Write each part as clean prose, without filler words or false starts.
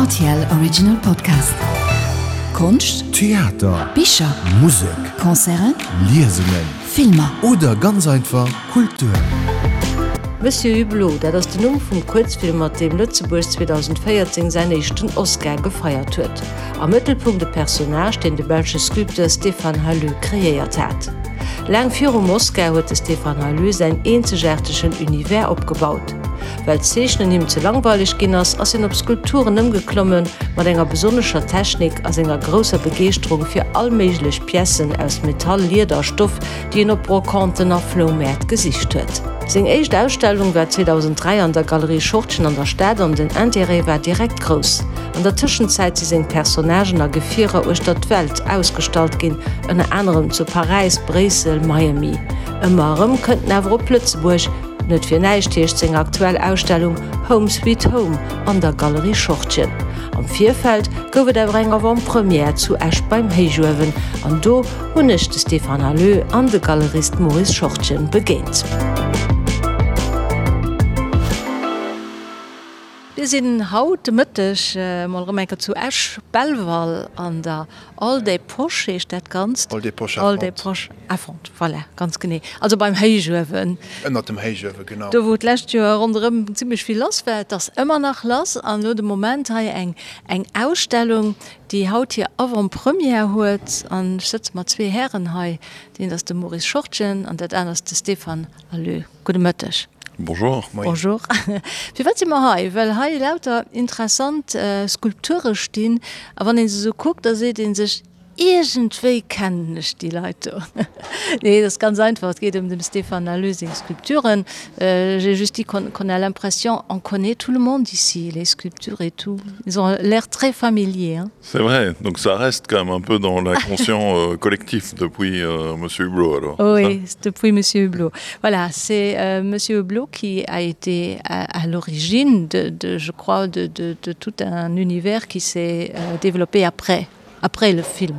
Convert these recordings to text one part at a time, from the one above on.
Rtl Original Podcast. Konscht, Theater, Bicher, Musek, Concerten, Liesungen Filmer. Oder ganz einfach Kultur. Monsieur Hublot, dat ass den Numm vum Kuerzfilm, mat deem Lëtzebuerg 2014 säin éischten Oscar gefeiert huet. Am Mëttelpunkt e Personnage, deen de belsche Sculpteur Stéphane Halleux kreéiert hat. Laang virum Oscar huet de Stéphane Halleux säin eenzegaartegen Univers opgebaut. Well d'Zeechnen him ze langweileg ginn ass, ass hien op Skulpturen ëmgeklommen, mat enger besonnescher Technik a senger grousser Begeeschterung fir all méiglech Piècen aus Metall, Lieder a Stoff, déi en op Brocanten a Floumäert gesicht huet. Seng éischt Ausstellung war 2003 an der Galerie Schortgen an der Stad an den Interêt war direkt grouss. An der Tëschenzäit si seng Personnagen a Gefierer uechter d'Welt ausgestallt ginn, ënner anerem zu Paräis, Bréissel, Miami. Ëmmer erëm kënnt en awer op Lëtzebuerg. Net fir näischt heescht seng aktuell Ausstellung Home Sweet Home an der Galerie Schortgen. Am Virfeld gouf et awer eng Avant-Première zu Esch beim Héichuewen an do hunn ech de Stéphane Halleux an de Galerist Maurice Schortgen begéint. Mir sinn haut de Mëtteg mol erëm eng Kéier zu Esch Belval an der Hall des Poches heescht dat Ganzt. Hall des Poches à Hall des Fonte. Poches à Fonte, voilà, ganz genee. Also beim Héichuewen. Ënnert dem Héichuewen, genau. Do wou d'lescht Joer ronderëm zimmlech vill lass war. Et ass ëmmer nach lass an elo de Moment hei eng eng Ausstellung, déi haut hir Avant-première huet. An ech sëtze mat zwee Hären hei. Deen ass de Maurice Schortgen an dat aner ass de Stéphane Halleux. Gudde Mëtteg. Bonjour. Moien. Bonjour. Firwat si mer hei? Well hei lauter interessant Skulpture stinn a wann ee se esou kuckt, da seet ee sech, iergendwéi kennen ech déi Leit do. Nee, et ass ganz einfach, et geet ëm dem Stéphane Halleux seng Skulpturen. J'ai juste dit qu'on qu'on a l'impression on connaît tout le monde ici, les sculptures et tout, ils ont l'air très familiers, hein. C'est vrai, donc ça reste quand même un peu dans l'inconscient euh, collectif depuis euh, Monsieur Hublot alors. Oui, depuis Monsieur Hublot. Voilà, c'est euh, Monsieur Hublot qui a été à, à l'origine de, de, je crois, de, de, de tout un univers qui s'est euh, développé après, après le film.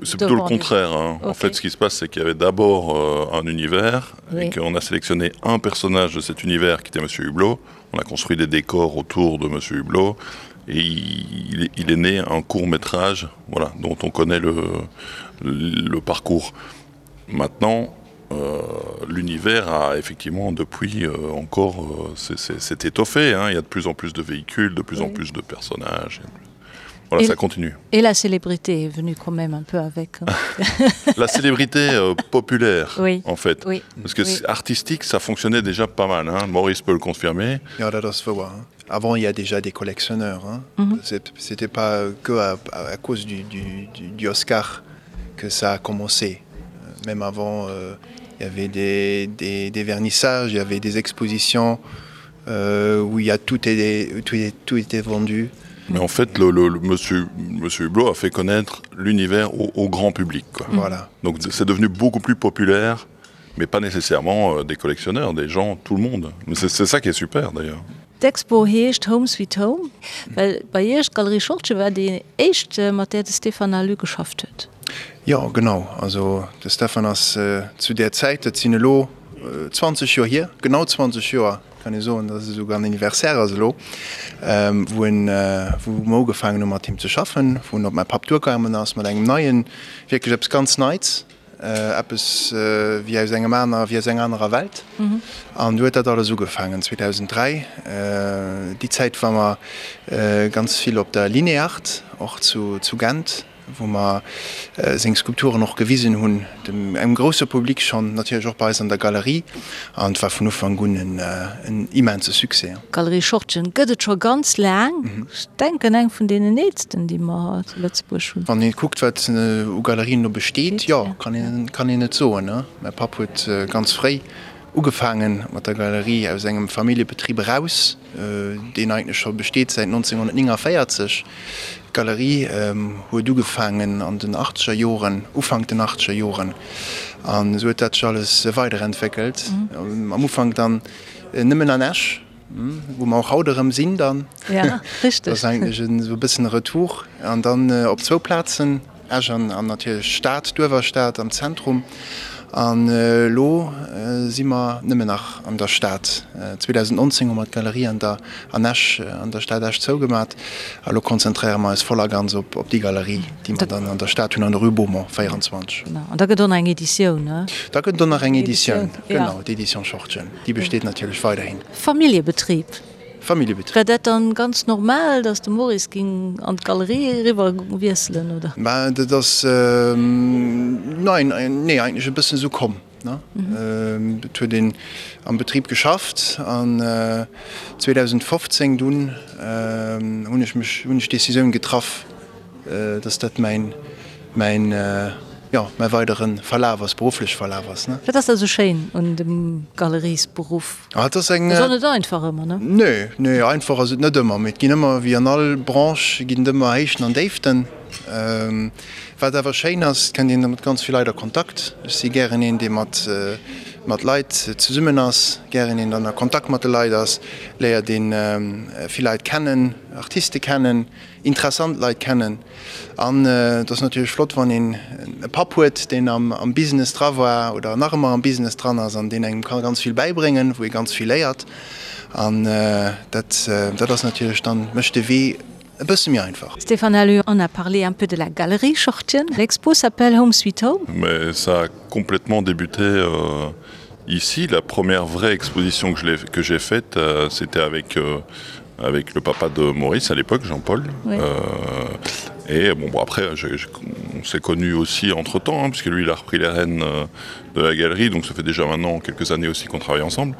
C'est plutôt le contraire. Hein. Okay. En fait, ce qui se passe, c'est qu'il y avait d'abord euh, un univers oui. et qu'on a sélectionné un personnage de cet univers qui était Monsieur Hublot. On a construit des décors autour de Monsieur Hublot et il, il est né un court métrage voilà, dont on connaît le, le parcours. Maintenant, euh, l'univers a effectivement depuis euh, encore euh, s'est étoffé hein. il y a de plus en plus de véhicules de plus oui. en plus de personnages voilà, et, ça continue et la célébrité est venue quand même un peu avec hein. la célébrité euh, populaire oui. en fait oui. parce que oui. artistique ça fonctionnait déjà pas mal hein. Maurice peut le confirmer ja, das war, hein. avant il y a déjà des collectionneurs hein. mm -hmm. c'était pas que à, à cause du, du, du, du Oscar que ça a commencé euh, même avant euh, il y avait des, des, des vernissages il y avait des expositions euh, où il y a tout est tout est tout était vendu mais en fait le, le, le monsieur monsieur Hublot a fait connaître l'univers au, au grand public quoi. Mmh. voilà donc c'est devenu beaucoup plus populaire mais pas nécessairement euh, des collectionneurs des gens tout le monde mais c'est ça qui est super d'ailleurs D'Expo heescht Home Sweet Home, well bei Iech, d'Galerie Schortgen war déi éischt, mat där de Stéphane Halleux geschafft huet. Jo, genau. Also de Stéphane ass zu där Zäit, dat sinn elo 20 Joer hier, genau 20 Joer kann ee soen, datt et esouguer en Anniversaire ass elo, wou en, wou mer ugefaangen hu mat him ze schaffen, wou en op mäi Papp duergaangen ass mat engem neien, wierklech eppes ganz Neits. Eppes wéi aus engem aner, wéi aus enger anerer Welt. An du huet dat alles ugefaangen 2003. Déi Zäit war mer ganz vill op der Lineart, och zu Gent, wou mer seng Skulpturen och gewisen hunn, dem engem grousse Public schonn, natierlech och bei eis an der Galerie. An et war vun Ufank un en immense Succès. D'Galerie Schortgen gëtt et scho ganz laang. Ech denken eng vun deenen eelsten, déi mer zu Lëtzebuerg hunn. Wann ee kuckt, wat u Galerien elo besteet, jo, kann een, kann een et soen. Mäi Papp huet ganz fréi ugefaange mat der Galerie aus engem Familljebetrib eraus, deen eigentlech scho besteet säit 1949. D'Galerie huet ugefaangen an den achtzeger Joren, Ufank den achtzeger Joren, an esou huet dat sech alles weiderentwéckelt. Am Ufank dann nëmmen an Esch, wou mer och haut erëm sinn dann. Ja, richteg. Dat ass eigentlech esou e bëssen e Retour. An dann op zwou Plazen, Esch an natierlech d'Stad, d'Uewerstad am Zentrum. An elo si mer nëmmen nach an der Stad. 2019 hu mer d'Galerie an der an Esch, an der Stad Esch zougemat. A lo konzentréiere mer eis voll a ganz op op déi Galerie, déi mer dann an der Stad hunn, an der Rue Beaumont 24. Genau. An da gëtt och nach eng Editioun, ne? Da gëtt et och nach eng Editioun, genau, d'Édition Schortgen. Déi besteet natierlech weiderhin. Familljebetrib. Familljebetrib. War dat dann ganz normal, dass de Maurice ging an d'Galerie eriwwer wiesselen, oder? Mä dat ass, nein, nee, eigentlech e bëssen esou komm, ne. Et huet een am Betrib geschafft an 2015 dunn hunn ech mech, hunn ech d'Decisioun getraff, dass dat mäin, mäin, jo, mäi weidere Verlaf ass, beruffleche Verlaf ass, ne. Wat ass da sou schéin un dem Galeriesberuff? Ah, et ass eng. Ass och net einfach ëmmer, ne? Nee, nee, einfach ass et net ëmmer, mee et ginn ëmmer, wéi an all Branche, ginn et ëmmer Héichten an Déiften. Wat awer schéin ass, et kënnt een mat ganz vill Leit a Kontakt. Ech si gären een, dee mat, mat Leit zesummen ass, gären een dann a Kontakt mat de Leit ass, léiert een vill Leit kennen, Artiste kennen, interessant Leit kennen. An et ass natierlech flott, wann een e Papp huet, deen am Business dra war oder nach ëmmer am Business dran ass an deen engem ka ganz vill bäibréngen, wou ee ganz vill léiert. An dat, dat ass natierlech dann, mécht de Wee e bësse méi einfach. Stéphane Halleux, on a parlé un peu de la galerie Schortgen. L'expo s'appelle Home Sweet Home. Mais ça a complètement débuté euh, ici. La première vraie exposition que j'ai faite, euh, c'était avec euh, avec le papa de Maurice à l'époque, Jean-Paul. Oui. Euh, et bon, bon après je, je, on s'est connu aussi entre temps hein, puisque lui il a repris les rênes euh, de la galerie, donc ça fait déjà maintenant quelques années aussi qu'on travaille ensemble.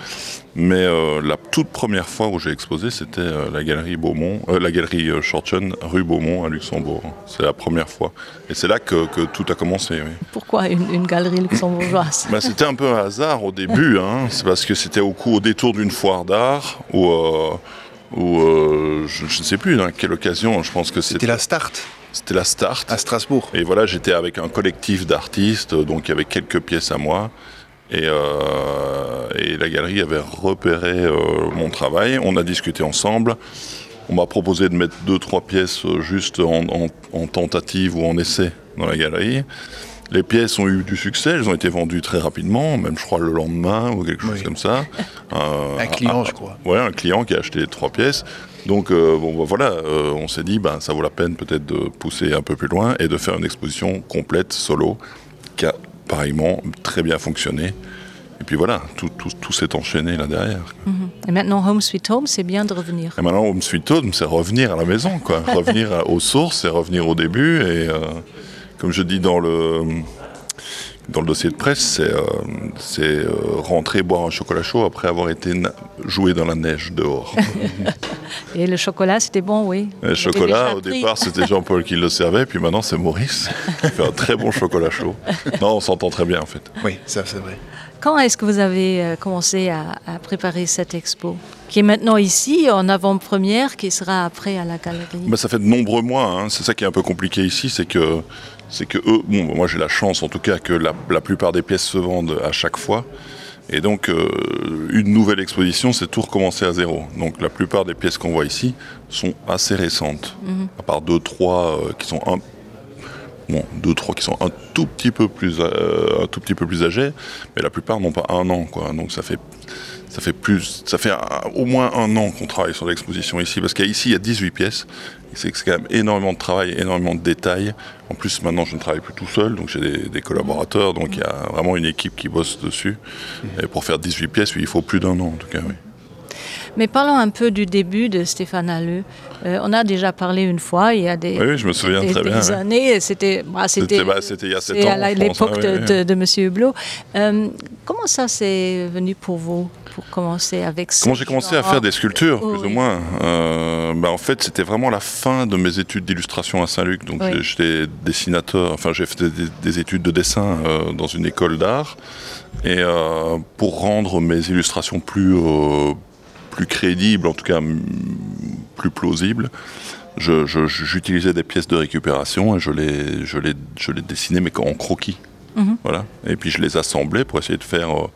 Mais euh, la toute première fois où j'ai exposé, c'était euh, la galerie Beaumont, euh, la galerie euh, Shortchen, rue Beaumont à Luxembourg. C'est la première fois. Et c'est là que, que tout a commencé. Oui. Pourquoi une, une galerie luxembourgeoise C'était un peu un hasard au début, c'est parce que c'était au coup au détour d'une foire d'art où euh, où euh, je, je ne sais plus dans quelle occasion je pense que c'était la start c'était la start à Strasbourg et voilà j'étais avec un collectif d'artistes donc il y avait quelques pièces à moi et, euh, et la galerie avait repéré euh, mon travail on a discuté ensemble on m'a proposé de mettre deux trois pièces euh, juste en, en, en tentative ou en essai dans la galerie les pièces ont eu du succès elles ont été vendues très rapidement même je crois le lendemain ou quelque chose oui. comme ça euh, un client un, je crois ouais un client qui a acheté trois pièces donc euh, bon ben, voilà euh, on s'est dit ben ça vaut la peine peut-être de pousser un peu plus loin et de faire une exposition complète solo qui a pareillement très bien fonctionné et puis voilà tout, tout, tout s'est enchaîné là derrière mm -hmm. et maintenant home sweet home c'est bien de revenir et maintenant home sweet home c'est revenir à la maison quoi revenir aux sources et revenir au début et euh, comme je dis dans le dans le dossier de presse c'est euh, euh, rentrer boire un chocolat chaud après avoir été joué dans la neige dehors et le chocolat c'était bon oui le chocolat au départ c'était jean paul qui le servait puis maintenant c'est maurice qui fait un très bon chocolat chaud non on s'entend très bien en fait oui ça c'est vrai quand est-ce que vous avez euh, commencé à, à préparer cette expo qui est maintenant ici en avant-première qui sera après à la galerie Mais ça fait de nombreux mois c'est ça qui est un peu compliqué ici c'est que c'est que eux bon moi j'ai la chance en tout cas que la, la plupart des pièces se vendent à chaque fois et donc euh, une nouvelle exposition c'est tout recommencer à zéro donc la plupart des pièces qu'on voit ici sont assez récentes mm -hmm. à part deux trois euh, qui sont un bon deux trois qui sont un tout petit peu plus euh, un tout petit peu plus âgés mais la plupart n'ont pas un an quoi donc ça fait ça fait plus ça fait un, au moins un an qu'on travaille sur l'exposition ici parce qu'ici il y a 18 pièces c'est quand même énormément de travail énormément de détails en plus maintenant je ne travaille plus tout seul donc j'ai des, des collaborateurs donc il y a vraiment une équipe qui bosse dessus et pour faire 18 pièces oui, il faut plus d'un an en tout cas oui. Mais parlons un peu du début de Stéphane Halleux. Euh, on a déjà parlé une fois il y a des, oui, oui, je me souviens des, très des bien, années oui. c'était bah, c'était bah, à l'époque oui, de, de, de monsieur Hublot. Euh, comment ça s'est venu pour vous pour commencer avec comment j'ai commencé à faire des sculptures oh, plus oui. ou moins euh, bah, en fait c'était vraiment la fin de mes études d'illustration à Saint-Luc donc oui. j'étais dessinateur enfin j'ai fait des, des études de dessin euh, dans une école d'art et euh, pour rendre mes illustrations plus euh, plus crédibles en tout cas plus plausibles j'utilisais des pièces de récupération et je les je les je les dessinais mais en croquis mm -hmm. voilà et puis je les assemblais pour essayer de faire euh,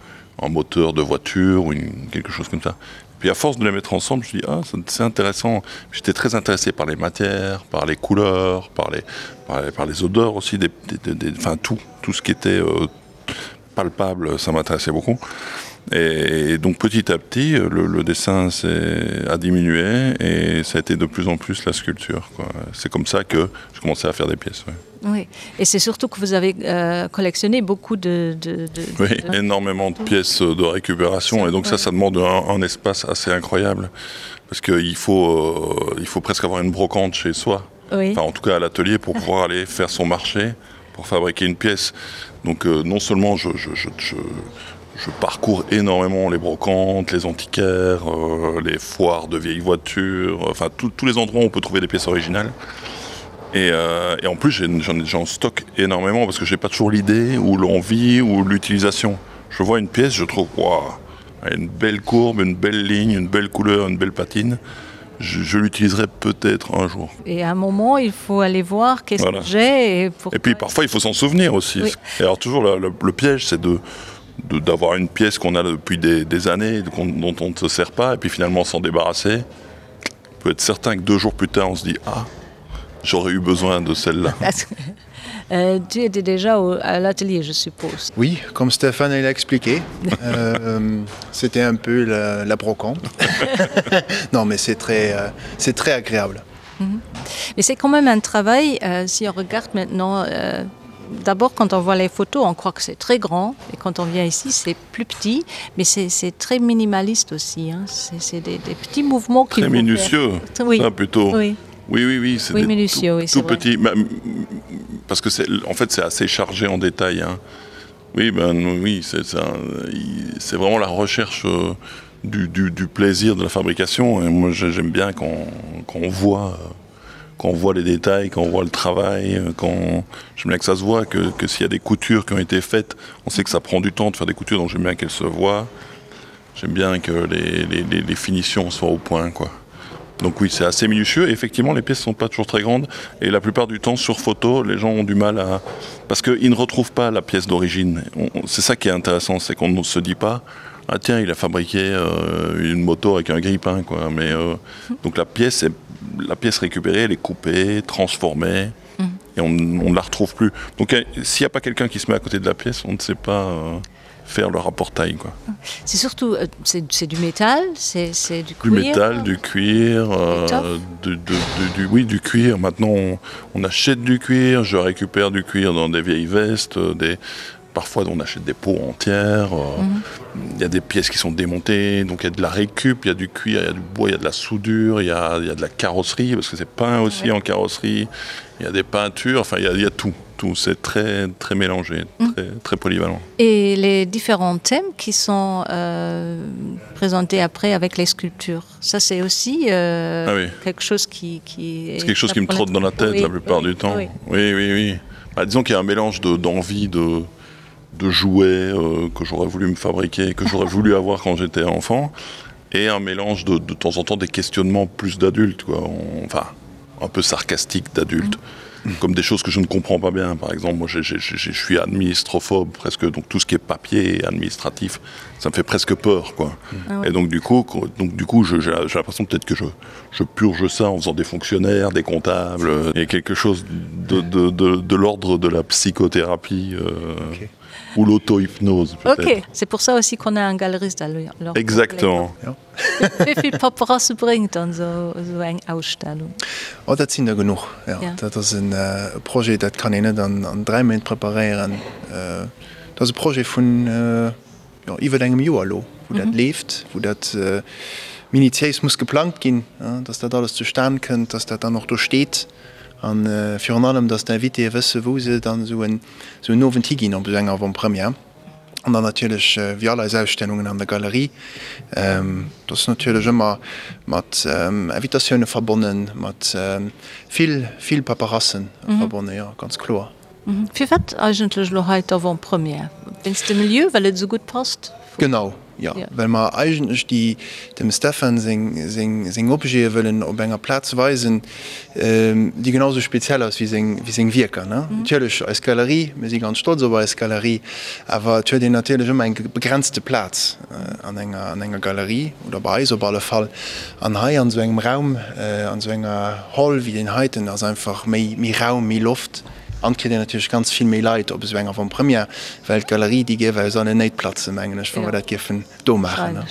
un moteur de voiture ou une, quelque chose comme ça. Puis à force de les mettre ensemble, je dis ah, c'est intéressant. J'étais très intéressé par les matières, par les couleurs, par les, par les, par les odeurs aussi, des, des, des, des, enfin tout, tout ce qui était euh, palpable, ça m'intéressait beaucoup. Et, et donc petit à petit, le, le dessin a diminué et ça a été de plus en plus la sculpture. C'est comme ça que je commençais à faire des pièces. Ouais. Oui. Et c'est surtout que vous avez euh, collectionné beaucoup de, de, de, oui, de... énormément de pièces de récupération et donc ouais. ça ça demande un, un espace assez incroyable parce qu'il faut, euh, il faut presque avoir une brocante chez soi oui. enfin, en tout cas à l'atelier pour pouvoir aller faire son marché pour fabriquer une pièce donc euh, non seulement je, je, je, je, je parcours énormément les brocantes les antiquaires euh, les foires de vieilles voitures enfin tous les endroits où on peut trouver des pièces originales et, euh, et en plus j'en stocke énormément parce que j'ai pas toujours l'idée ou l'envie ou l'utilisation je vois une pièce je trouve wow, une belle courbe une belle ligne une belle couleur une belle patine je, je l'utiliserai peut-être un jour. Et à un moment, il faut aller voir qu'est-ce voilà. que j'ai. Et, et puis parfois, il faut s'en souvenir aussi. Oui. Et alors toujours, le, le, le piège, c'est de d'avoir une pièce qu'on a depuis des, des années, qu dont on ne se sert pas, et puis finalement s'en débarrasser. On peut être certain que deux jours plus tard, on se dit « Ah, j'aurais eu besoin de celle-là. » Euh, tu étais déjà au, à l'atelier, je suppose. Oui, comme Stéphane l'a expliqué, euh, c'était un peu la, la brocante. non, mais c'est très, euh, très agréable. Mm -hmm. Mais c'est quand même un travail, euh, si on regarde maintenant, euh, d'abord quand on voit les photos, on croit que c'est très grand et quand on vient ici, c'est plus petit, mais c'est très minimaliste aussi. C'est des, des petits mouvements qui Très minutieux, faire. Oui. Ça, plutôt. Oui. Oui, oui, oui, c'est oui, minutieux, tout, oui, tout petit. Mais, parce que c'est en fait c'est assez chargé en détail. Hein. Oui, ben oui, c'est vraiment la recherche euh, du, du, du plaisir de la fabrication. Et moi j'aime bien qu'on qu voit euh, qu'on voit les détails, qu'on voit le travail, euh, qu'on j'aime bien que ça se voit, que, que s'il y a des coutures qui ont été faites, on sait que ça prend du temps de faire des coutures, donc j'aime bien qu'elles se voient. J'aime bien que les, les, les, les finitions soient au point quoi. Donc oui, c'est assez minutieux. Et effectivement, les pièces sont pas toujours très grandes et la plupart du temps sur photo, les gens ont du mal à parce qu'ils ne retrouvent pas la pièce d'origine. C'est ça qui est intéressant, c'est qu'on ne se dit pas ah tiens, il a fabriqué euh, une moto avec un grille-pain quoi. Mais euh, donc la pièce est la pièce récupérée, elle est coupée, transformée mmh. et on, on ne la retrouve plus. Donc euh, s'il n'y a pas quelqu'un qui se met à côté de la pièce, on ne sait pas euh, faire le rapport taille quoi. C'est surtout euh, c'est du métal, c'est du cuir. Du métal, du cuir, euh, du, du, du, du, oui du cuir. Maintenant on, on achète du cuir, je récupère du cuir dans des vieilles vestes, euh, des parfois on achète des peaux entières, euh, mmh. il y a des pièces qui sont démontées, donc il y a de la récup, il y a du cuir, il y a du bois, il y a de la soudure, il y a, il y a de la carrosserie parce que c'est peint aussi ouais. en carrosserie, il y a des peintures, enfin il y a, il y a tout tout c'est très très mélangé mmh. très, très polyvalent. Et les différents thèmes qui sont euh, présentés après avec les sculptures, ça c'est aussi euh, ah oui. quelque chose qui, qui est quelque chose qui me trotte dans la tête oui, la plupart oui, du temps. Oui oui oui. oui. Bah, disons qu'il y a un mélange d'envie de, de, de jouets euh, que j'aurais voulu me fabriquer, que j'aurais voulu avoir quand j'étais enfant et un mélange de, de temps en temps des questionnements plus d'adultes quoi on, enfin un peu sarcastique d'adultes. Mmh comme des choses que je ne comprends pas bien par exemple moi je, je, je, je suis administrophobe presque donc tout ce qui est papier et administratif ça me fait presque peur quoi ah ouais. et donc du coup donc du coup j'ai l'impression peut-être que je, je purge ça en faisant des fonctionnaires des comptables et quelque chose de, de, de, de l'ordre de la psychothérapie euh, okay ou l'auto-hypnose. Ok, c'est pour ça aussi qu'on a un galeriste à Exactement. Ja. Wéi vill Paperasse bréngt dann esou eng Ausstellung? Oh, dat sinn der genuch, jo. Dat ass e Projet, dat kann een net an 3 Méint preparéieren. Dat ass e Projet vun, jo, iwwer engem Joer elo, wou dat leeft, wou dat minutiéis muss geplangt ginn, dass dat alles zustan kënnt, dass dat dann och do steet a virun allem, dass d'Invitéë wësse wou se dann esou en Owend higinn op esou enger Avant-première. An dann natierlech, wéi all eis Ausstellungen an der Galerie, dat ass natierlech ëmmer mat Invitatioune verbonnen, mat vill, vill Paperasse verbonnen, jo, ganz kloer. Firwat eigentlech elo hei d'Avant-première? Wéinst dem Lieu, well et esou gutt passt? Genau, jo, well mer eigentlech déi, dem Stephan seng, seng, seng Objete wëllen op enger Plaz weisen, déi genau sou speziell ass wéi seng, wéi seng Wierker, ne. Natierlech eis Galerie, mir si ganz stolz op eis Galerie, awer et huet een natierlech ëmmer eng begrenzte Plaz an enger, an enger Galerie oder bei eis op alle Fall. An hei an esou engem Raum, an esou enger Hall wéi deen heiten ass einfach méi, méi Raum, méi Loft. An et kritt een natierlech ganz vill méi Leit op esou eng Avant-première, well d'Galerie, déi géif eis allen néit platzen, mengen ech, wa mer dat géifen do maachen.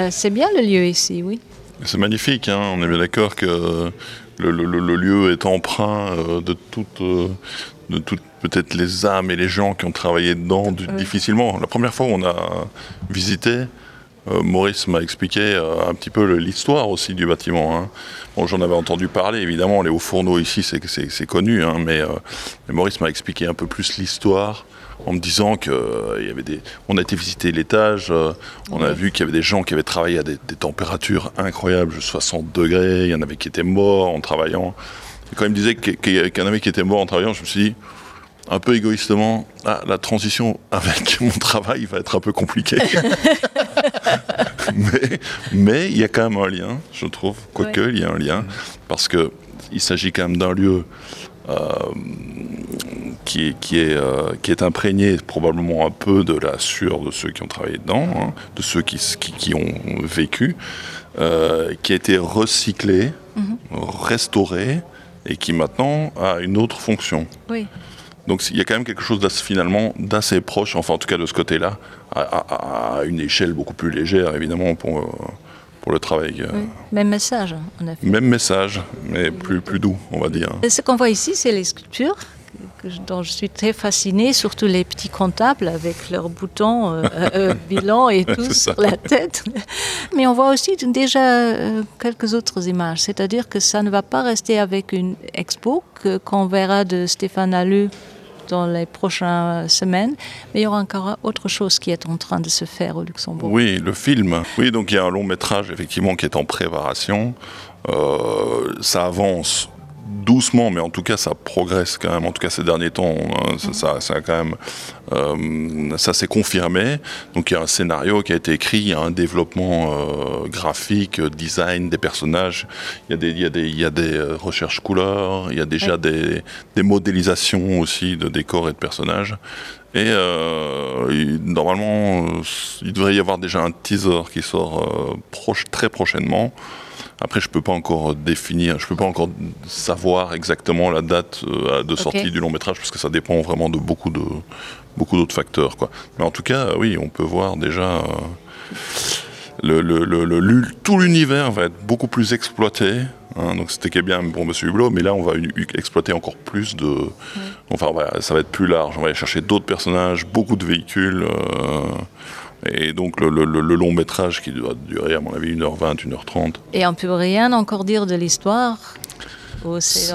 C'est bien le lieu ici, oui. C'est magnifique, hein, on est bien d'accord que le, le, le lieu est empreint euh, de toute, euh, de toute peut-être les âmes et les gens qui ont travaillé dedans du, oui. difficilement. La première fois où on a visité, euh, Maurice m'a expliqué euh, un petit peu l'histoire aussi du bâtiment. Hein. Bon, j'en avais entendu parler, évidemment, les hauts fourneaux ici, c'est connu, hein, mais, euh, mais Maurice m'a expliqué un peu plus l'histoire en me disant que euh, il y avait des on a été visiter l'étage euh, on a vu qu'il y avait des gens qui avaient travaillé à des, des températures incroyables 60 degrés il y en avait qui étaient morts en travaillant et quand il me disait qu'il qu y en avait qui étaient morts en travaillant je me suis dit un peu égoïstement ah, la transition avec mon travail va être un peu compliquée mais mais il y a quand même un lien je trouve quoique ouais. il y a un lien parce que il s'agit quand même d'un lieu euh, qui, qui, est, euh, qui est imprégné probablement un peu de la sueur de ceux qui ont travaillé dedans, hein, de ceux qui, qui, qui ont vécu, euh, qui a été recyclé, mm -hmm. restauré et qui maintenant a une autre fonction. Oui. Donc il y a quand même quelque chose finalement d'assez proche, enfin en tout cas de ce côté-là, à, à, à une échelle beaucoup plus légère évidemment pour, euh, pour le travail. Euh. Oui. Même message en effet. Même message, mais plus, plus doux, on va dire. Et ce qu'on voit ici, c'est les sculptures que je, dont je suis très fascinée, surtout les petits comptables avec leurs boutons euh, euh, bilan et tout sur la tête. Mais on voit aussi déjà euh, quelques autres images, c'est-à-dire que ça ne va pas rester avec une expo qu'on qu verra de Stéphane Allu dans les prochaines semaines, mais il y aura encore autre chose qui est en train de se faire au Luxembourg. Oui, le film. Oui, donc il y a un long métrage effectivement qui est en préparation. Euh, ça avance doucement mais en tout cas ça progresse quand même en tout cas ces derniers temps hein, ça, ça, ça a quand même euh, ça s'est confirmé donc il y a un scénario qui a été écrit il y a un développement euh, graphique design des personnages il y a des il y a des il y a des euh, recherches couleurs il y a déjà ouais. des, des modélisations aussi de décors et de personnages et euh, il, normalement euh, il devrait y avoir déjà un teaser qui sort euh, proche très prochainement et Après je peux pas encore définir, je peux pas encore savoir exactement la date euh, de sortie okay. du long métrage parce que ça dépend vraiment de beaucoup de beaucoup d'autres facteurs quoi. Mais en tout cas oui on peut voir déjà euh, le, le, le, le, le, tout l'univers va être beaucoup plus exploité hein, donc c'était bien pour monsieur Hublot mais là on va exploiter encore plus de ouais. enfin voilà, ça va être plus large on va aller chercher d'autres personnages beaucoup de véhicules euh, et donc le, le, le long métrage qui doit durer à mon avis 1h20 1h30 et on peut rien encore dire de l'histoire c'est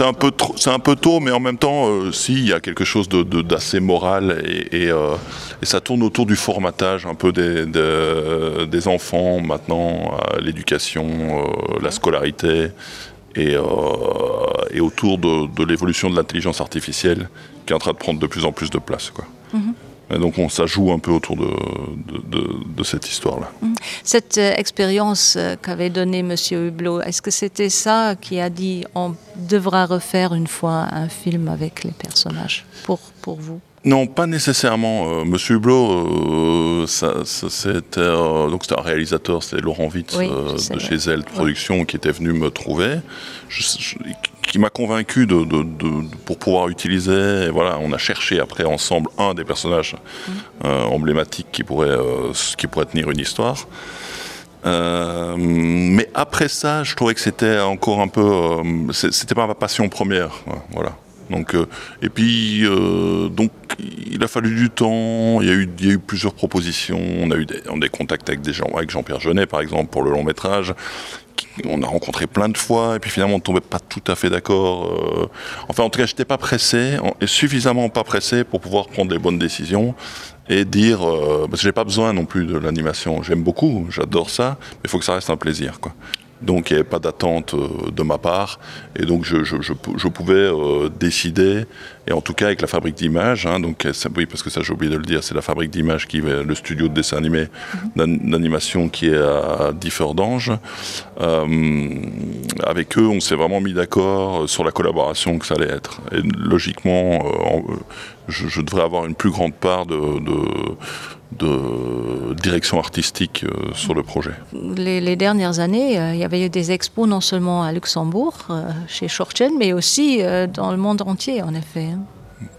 un peu c'est un peu tôt mais en même temps euh, s'il y a quelque chose de d'assez moral et, et, euh, et ça tourne autour du formatage un peu des, des, des enfants maintenant l'éducation euh, la scolarité et, euh, et autour de, de l'évolution de l'intelligence artificielle qui est en train de prendre de plus en plus de place quoi mm -hmm. Et donc on ça joue un peu autour de, de, de, de cette histoire là. Mm. Cette euh, expérience euh, qu'avait donnée monsieur Hublot, est-ce que c'était ça qui a dit on devra refaire une fois un film avec les personnages pour, pour vous? Non, pas nécessairement. Euh, Monsieur Hublot, euh, ça, ça, c'était euh, donc c'était un réalisateur, c'est Laurent Witz oui, euh, de chez Elle Production ouais. qui était venu me trouver, je, je, qui m'a convaincu de, de, de, de, pour pouvoir utiliser. Et voilà, on a cherché après ensemble un des personnages mmh. euh, emblématiques qui pourrait, euh, qui pourrait tenir une histoire. Euh, mais après ça, je trouvais que c'était encore un peu euh, c'était pas ma passion première voilà. Donc, euh, et puis euh, donc il a fallu du temps, il y a eu, il y a eu plusieurs propositions, on a eu des, on des contacts avec des gens avec Jean-Pierre Jeunet par exemple pour le long métrage on a rencontré plein de fois et puis finalement on tombait pas tout à fait d'accord euh, enfin en tout cas j'étais pas pressé et suffisamment pas pressé pour pouvoir prendre les bonnes décisions et dire euh, parce que j'ai pas besoin non plus de l'animation j'aime beaucoup j'adore ça mais il faut que ça reste un plaisir quoi donc il n'y avait pas d'attente euh, de ma part et donc je, je, je, je pouvais euh, décider et en tout cas avec la fabrique d'images donc ça, oui parce que ça j'ai oublié de le dire c'est la fabrique d'images qui est le studio de dessin animé mhm. d'animation qui est à Differdange euh, avec eux on s'est vraiment mis d'accord sur la collaboration que ça allait être et logiquement euh, en, euh, je, je devrais avoir une plus grande part de, de, de direction artistique euh, sur le projet. Les, les dernières années, euh, il y avait eu des expos non seulement à Luxembourg, euh, chez Schorchen, mais aussi euh, dans le monde entier en effet. Hein.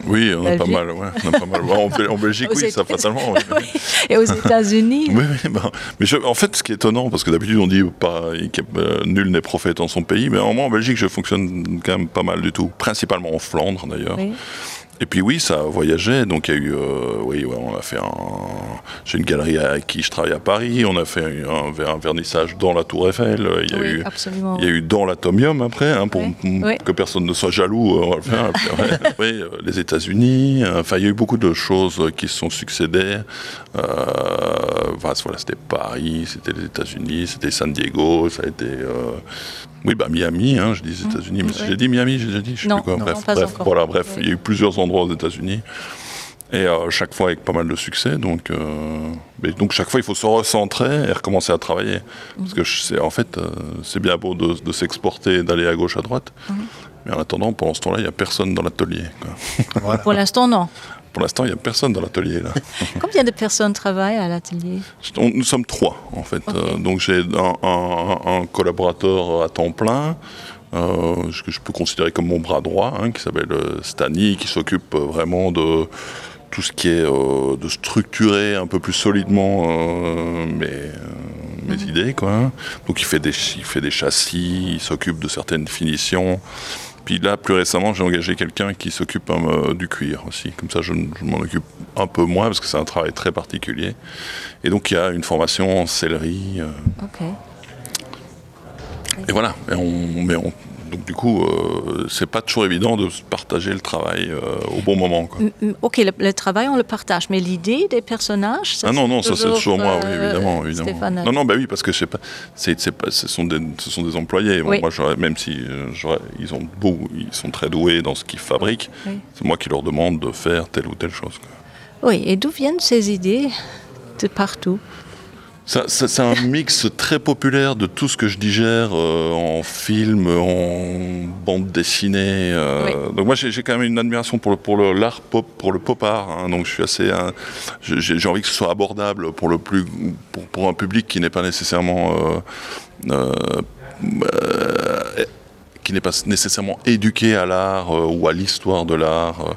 Oui, on a pas mal, ouais, on a pas mal. En, en Belgique, oui, ça fatalement. Oui. Oui. Et aux États-Unis. Oui, oui, ben, mais je, en fait, ce qui est étonnant, parce que d'habitude on dit pas euh, nul n'est prophète en son pays, mais en moi en Belgique, je fonctionne quand même pas mal du tout, principalement en Flandre d'ailleurs. Oui. Et puis oui, ça a voyagé, donc il y a eu euh, oui, ouais, on a fait un j'ai une galerie à qui je travaille à Paris, on a fait un, un vernissage dans la Tour Eiffel, il y a oui, eu absolument. il y a eu dans l'atomium après hein, pour oui. Oui. que personne ne soit jaloux euh, on va le faire, après, oui, euh, les États-Unis, euh, enfin il y a eu beaucoup de choses qui se sont succédées. Euh, enfin, voilà, c'était Paris, c'était les États-Unis, c'était San Diego, ça a été euh, oui bah Miami hein, je dis mmh. États-Unis mais oui. j'ai dit Miami, j'ai dit je sais non, plus quoi non, bref, non, bref voilà bref oui. il y a eu plusieurs endroits aux États-Unis et euh, chaque fois avec pas mal de succès donc euh, mais donc chaque fois il faut se recentrer et recommencer à travailler mmh. parce que c'est en fait euh, c'est bien beau de, de s'exporter d'aller à gauche à droite mmh. mais en attendant pendant ce temps là il n'y a personne dans l'atelier voilà. pour l'instant non pour l'instant il n'y a personne dans l'atelier là combien de personnes travaillent à l'atelier nous sommes trois en fait okay. euh, donc j'ai un, un, un collaborateur à temps plein euh, ce que je peux considérer comme mon bras droit hein, qui s'appelle euh, Stani qui s'occupe euh, vraiment de tout ce qui est euh, de structurer un peu plus solidement euh, mes, euh, mes mmh. idées quoi donc il fait des il fait des châssis il s'occupe de certaines finitions puis là plus récemment j'ai engagé quelqu'un qui s'occupe euh, du cuir aussi comme ça je, je m'en occupe un peu moins parce que c'est un travail très particulier et donc il y a une formation en sellerie euh, okay. et voilà et on mais on donc du coup euh, c'est pas toujours évident de partager le travail euh, au bon moment quoi. Ok le, le travail on le partage mais l'idée des personnages ça, ah non non ça c'est toujours moi oui, euh, évidemment, évidemment. non non bah oui parce que je sais pas c'est c'est pas ce sont des ce sont des employés bon, oui. moi même si euh, ils ont beau ils sont très doués dans ce qu'ils fabriquent oui. c'est moi qui leur demande de faire telle ou telle chose quoi. Oui et d'où viennent ces idées de partout Ça, ça, c'est un mix très populaire de tout ce que je digère euh, en film, en bande dessinée. Euh, oui. Donc moi j'ai quand même une admiration pour le, pour le l'art pop, pour le pop art. Hein, donc je suis assez, hein, j'ai envie que ce soit abordable pour le plus, pour, pour un public qui n'est pas nécessairement euh, euh, euh, qui n'est pas nécessairement éduqué à l'art euh, ou à l'histoire de l'art. Euh,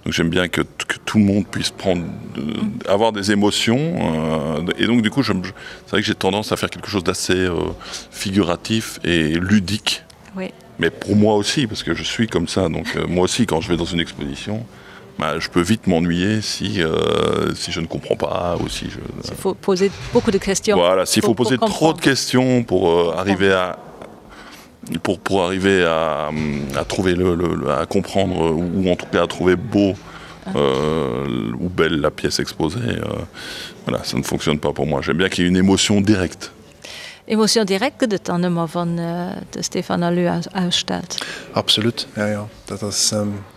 donc j'aime bien que, que tout le monde puisse prendre euh, Mm. avoir des émotions euh, et donc du coup je, je, c'est vrai que j'ai tendance à faire quelque chose d'assez euh, figuratif et ludique. Oui. Mais pour moi aussi parce que je suis comme ça donc euh, moi aussi quand je vais dans une exposition, bah, je peux vite m'ennuyer si, euh, si je ne comprends pas ou si je il faut poser beaucoup de questions. Voilà, s'il faut poser trop de questions pour euh, arriver à pour, pour arriver à, à trouver le, le, à comprendre ou en tout cas à trouver beau euh, ou belle la pièce exposée euh, voilà ça ne fonctionne pas pour moi j'aime bien qu'il y ait une émotion directe Emotion direkt gëtt et dann ëmmer wann de Stéphane Alu ausstellt. Absolut, jo jo, dat ass,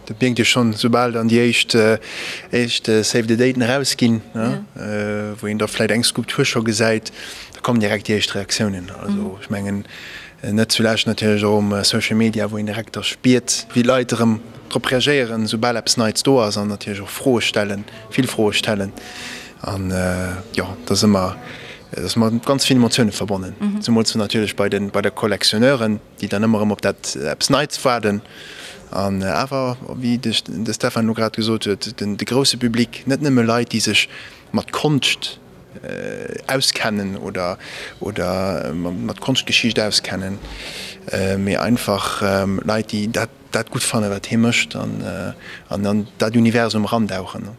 dat mierkt ee schonn, soubal dann déi éischt éischt Save the Daten erausginn, wou een da vläicht eng Skulptur scho gesäit, da kommen direkt déi éischt Reaktiounen. Also ech mengen, net zulescht natierlech och um Social Media, wou een direkt da spiert, wéi d'Leit erëm drop reagéieren, soubal eppes Neits do ass an natierlech och Froe stellen, vill Froe stellen. An jo, dat ass ëmmer, dat ass mat ganz vill Emotioune verbonnen, zemools natierlech bei de bei de Collectionneuren, déi dann ëmmer erëm op dat eppes Neits waarden. An awer, wéi de de Stefan elo grad gesot huet, den de grousse Public, net nëmme Leit, déi sech mat Konscht auskennen oder oder mat Konschtgeschicht auskennen, mee einfach Leit, déi dat dat gutt fannen, wat hie mécht an an an dat Universum erandauchen.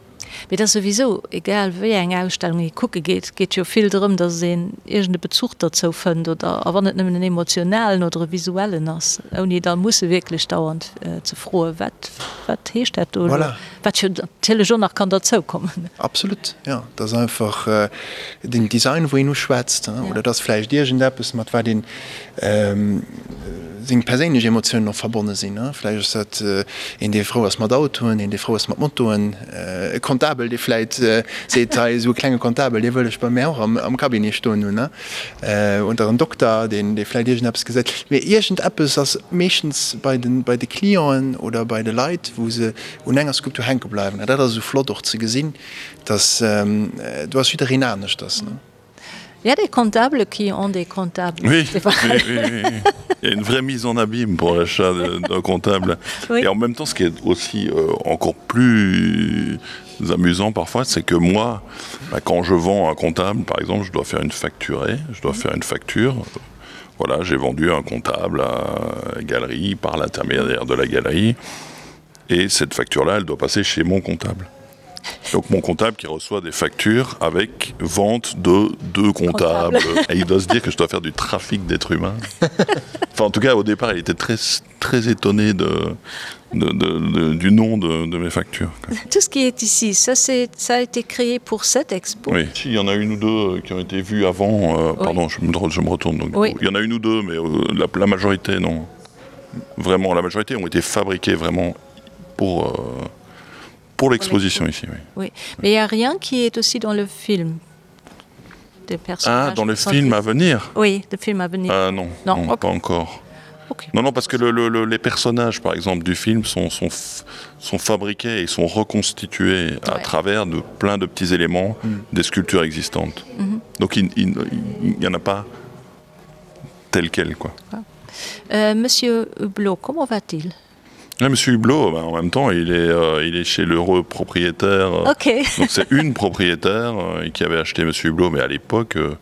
Mee et ass souwisou, egal wéi eng Ausstellung ee kucke geet, geet jo vill drëm, datt een iergend e Bezuch derzou fënnt oder, a wann et nëmmen en emotionalen oder e visuellen ass, ouni da musse wierklech dauernd ze froen, wat, wat heescht dat do elo, wat jo natierlech och nach kann derzoukommen. Absolut, jo. Et ass einfach den Design, wou een uschwätzt, oder et ass vläicht iergendeppes, mat wat een seng perséinlech Emotiounen och verbonne sinn. Vläicht ass dat een, dee frou ass mat Autoen, een, dee frou ass mat Motoen, e Kontakt. Comptabel, dee vläit seet, hei esou e klenge Comptabel, dee wëll ech bei mär och am Cabinet stoen hunn, ne? Oder en Dokter, deen, dee vläit iergendeppes gesäit. Mee iergendeppes ass meeschtens bei de, bei de Clienten oder bei de Leit, wou se un enger Skulptur hänke bleiwen. An dat ass esou flott och ze gesinn, dass do ass jiddereen aneschters, ne? Il y a des comptables qui ont des comptables. Oui, oui, oui, oui. Il y a une vraie mise en abîme pour l'achat d'un comptable. Oui. Et en même temps, ce qui est aussi euh, encore plus amusant parfois, c'est que moi, bah, quand je vends un comptable, par exemple, je dois faire une facturée, je dois faire une facture. Voilà, j'ai vendu un comptable à la galerie par l'intermédiaire de la galerie. Et cette facture-là, elle doit passer chez mon comptable. Donc mon comptable qui reçoit des factures avec vente de deux comptables. Comptable. Et il doit se dire que je dois faire du trafic d'êtres humains. Enfin en tout cas au départ il était très très étonné de, de, de, de, du nom de, de mes factures. Quoi. Tout ce qui est ici, ça, ça a été créé pour cette expo. Oui. Si, il y en a une ou deux euh, qui ont été vues avant euh, oui. pardon je me, je me retourne donc, oui. il y en a une ou deux mais euh, la, la majorité non vraiment la majorité ont été fabriquées vraiment pour euh, pour l'exposition ici oui. oui mais il n'y a rien qui est aussi dans le film des ah dans le film à venir oui le film à venir ah, non, non, non okay. pas encore okay. non non parce que le, le, le, les personnages par exemple du film sont sont sont fabriqués et sont reconstitués ouais. à travers de plein de petits éléments mm. des sculptures existantes mm -hmm. donc il, il, il n'y en a pas tel quel quoi ah. euh, monsieur Hublot comment va-t-il Ouais, monsieur Hublot, ben, en même temps, il est, euh, il est chez l'heureux propriétaire. Euh, okay. donc c'est une propriétaire euh, qui avait acheté monsieur Hublot, mais à l'époque, euh,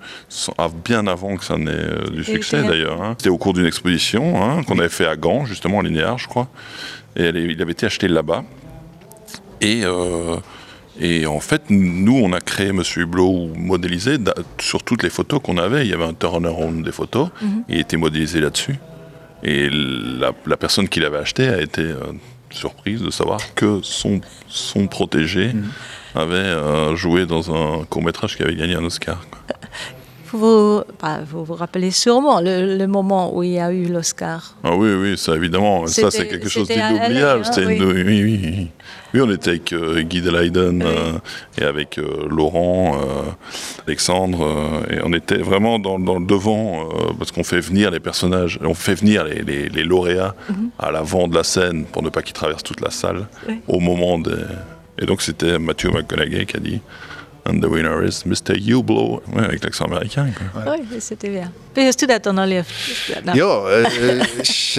bien avant que ça n'ait euh, du succès d'ailleurs. C'était au cours d'une exposition hein, qu'on avait fait à Gand, justement, en linéaire, je crois. Et elle, il avait été acheté là-bas. Et, euh, et en fait, nous, on a créé monsieur Hublot ou modélisé sur toutes les photos qu'on avait. Il y avait un turnaround des photos. Mm -hmm. Il était modélisé là-dessus. Et la, la personne qui l'avait acheté a été euh, surprise de savoir que son, son protégé mmh. avait euh, joué dans un court métrage qui avait gagné un Oscar. Quoi. Vous, bah, vous vous rappelez sûrement le, le moment où il y a eu l'Oscar. Ah oui oui ça évidemment ça c'est quelque chose d'inoubliable hein, oui. oui, oui, oui. oui on était avec euh, Guy de Leiden oui. euh, et avec euh, Laurent euh, Alexandre euh, et on était vraiment dans, dans le devant euh, parce qu'on fait venir les personnages on fait venir les, les, les lauréats mm -hmm. à l'avant de la scène pour ne pas qu'ils traversent toute la salle oui. au moment des et donc c'était Mathieu McConaughey qui a dit And the winner is Mr. Hublot ouais, avec l'accent américain quoi. Ouais. Oui, c'était bien. Wéi hues du dat dann erlieft? Jo, ech.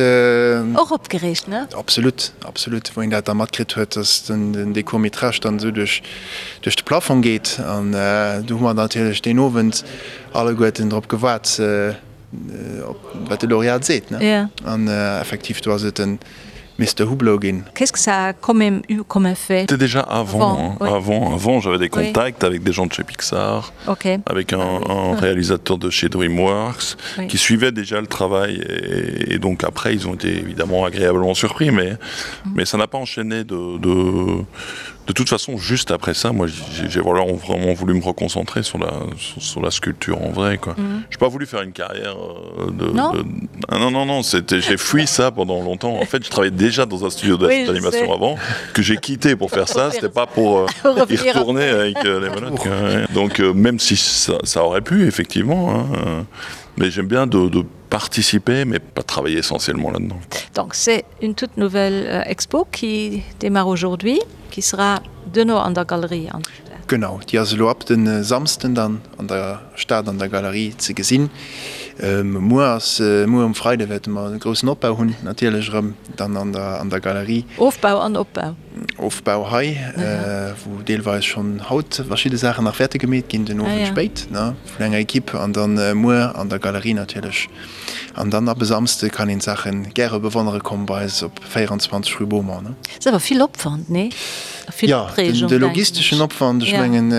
Och opgereegt, ne? Absolut, absolut. Wou een dat da matkritt huet, dass den dee Court-métrage dann esou duerch duerch de Plafong geet. An do hu mer natierlech deen Owend alleguerten drop gewaart, op wat de Laureat seet, ne? An effektiv, do ass et den Mister Hublot ginn. Qu'est-ce que ça a quand même eu comme effet? C'était déjà avant, avant, oui. avant, avant j'avais des contacts oui. avec des gens de chez Pixar, okay. avec un, un réalisateur de chez DreamWorks oui. qui suivait déjà le travail et, et donc après ils ont été évidemment agréablement surpris mais, mm. mais ça n'a pas enchaîné de, de, de toute façon juste après ça moi j'ai voilà, vraiment voulu me reconcentrer sur la, sur, sur la sculpture en vrai quoi. Mm. J'ai pas voulu faire une carrière euh, de, non. De, ah, non non non c'était j'ai fui ça pendant longtemps en fait je travaillais déjà dans un studio d'animation oui, avant que j'ai quitté pour faire ça c'était pas pour euh, y retourner avec euh, les menottes ouais. donc euh, même si ça, ça aurait pu effectivement hein, euh, mais j'aime bien de, de participer mais pas travailler essentiellement là dedans donc c'est une toute nouvelle euh, expo qui démarre aujourd'hui qui sera de nos an der galerie an Genau, déi ass elo ab de Samsden dann an der Stad an der Galerie ze gesinn. Muer ass, muer um Freide wäerte mer e groussen Opbau hunn, natierlech erëm dann an der an der Galerie. Ofbau an Opbau. Ofbau hei, wou deelweis schonn haut verschidde Saachen nach wäerte gemeet ginn, den Owend spéit, ne, vun enger Equipe an dann muer an der Galerie natierlech. An dann ab e Samsde kann een d'Saache gäre bewonnere kommen bei eis op 24 rue Beaumont, ne. Ass awer vill Opwand, nee? A vill Jo, Opreegung, de denken logisteschen ech. Opwand, ech Ja. mengen,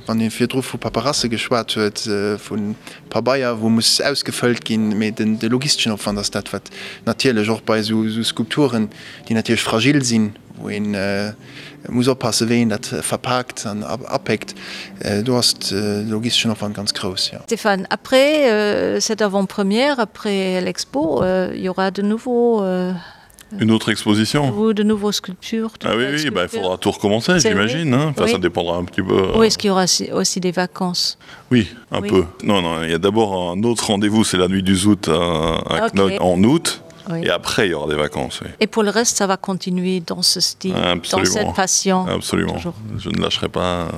wann ee virdru vu Paperasse geschwat huet, vu Pabeier, wou muss ausgefëllt ginn, mee den de logisteschen Opwand ass dat, wat natierlech och bei esou Skulpturen, déi natierlech fragil sinn, wou een muss oppassen, wéi een dat verpaakt an apéckt, do ass de logisteschen Opwand ganz grouss, jo. Stéphane, après cette avant-première, après l'expo, il y aura de nouveaux. Une autre exposition Ou de nouveaux sculptures de Ah oui, oui bah, il faudra tout recommencer, j'imagine. Enfin, oui. ça dépendra un petit peu. Euh... Oui, est-ce qu'il y aura aussi des vacances Oui, un oui. peu. Non, non, il y a d'abord un autre rendez-vous, c'est la nuit du Zout à, à okay. Knock en août. Oui. Et après, il y aura des vacances. Oui. Et pour le reste, ça va continuer dans ce style, Absolument. dans cette passion. Absolument. Toujours. Je ne lâcherai pas,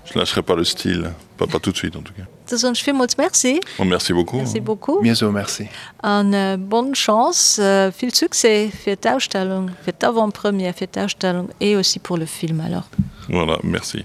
je ne lâcherai pas le style, pas, pas tout de suite en tout cas. Da soen ech villmools Merci. Bon, merci beaucoup. Merci beaucoup. Mir soe Merci. An bonne chance, vill Succès fir d'Ausstellung, fir d'Avant-première, fir d'Ausstellung et aussi pour le film alors. Voilà, merci.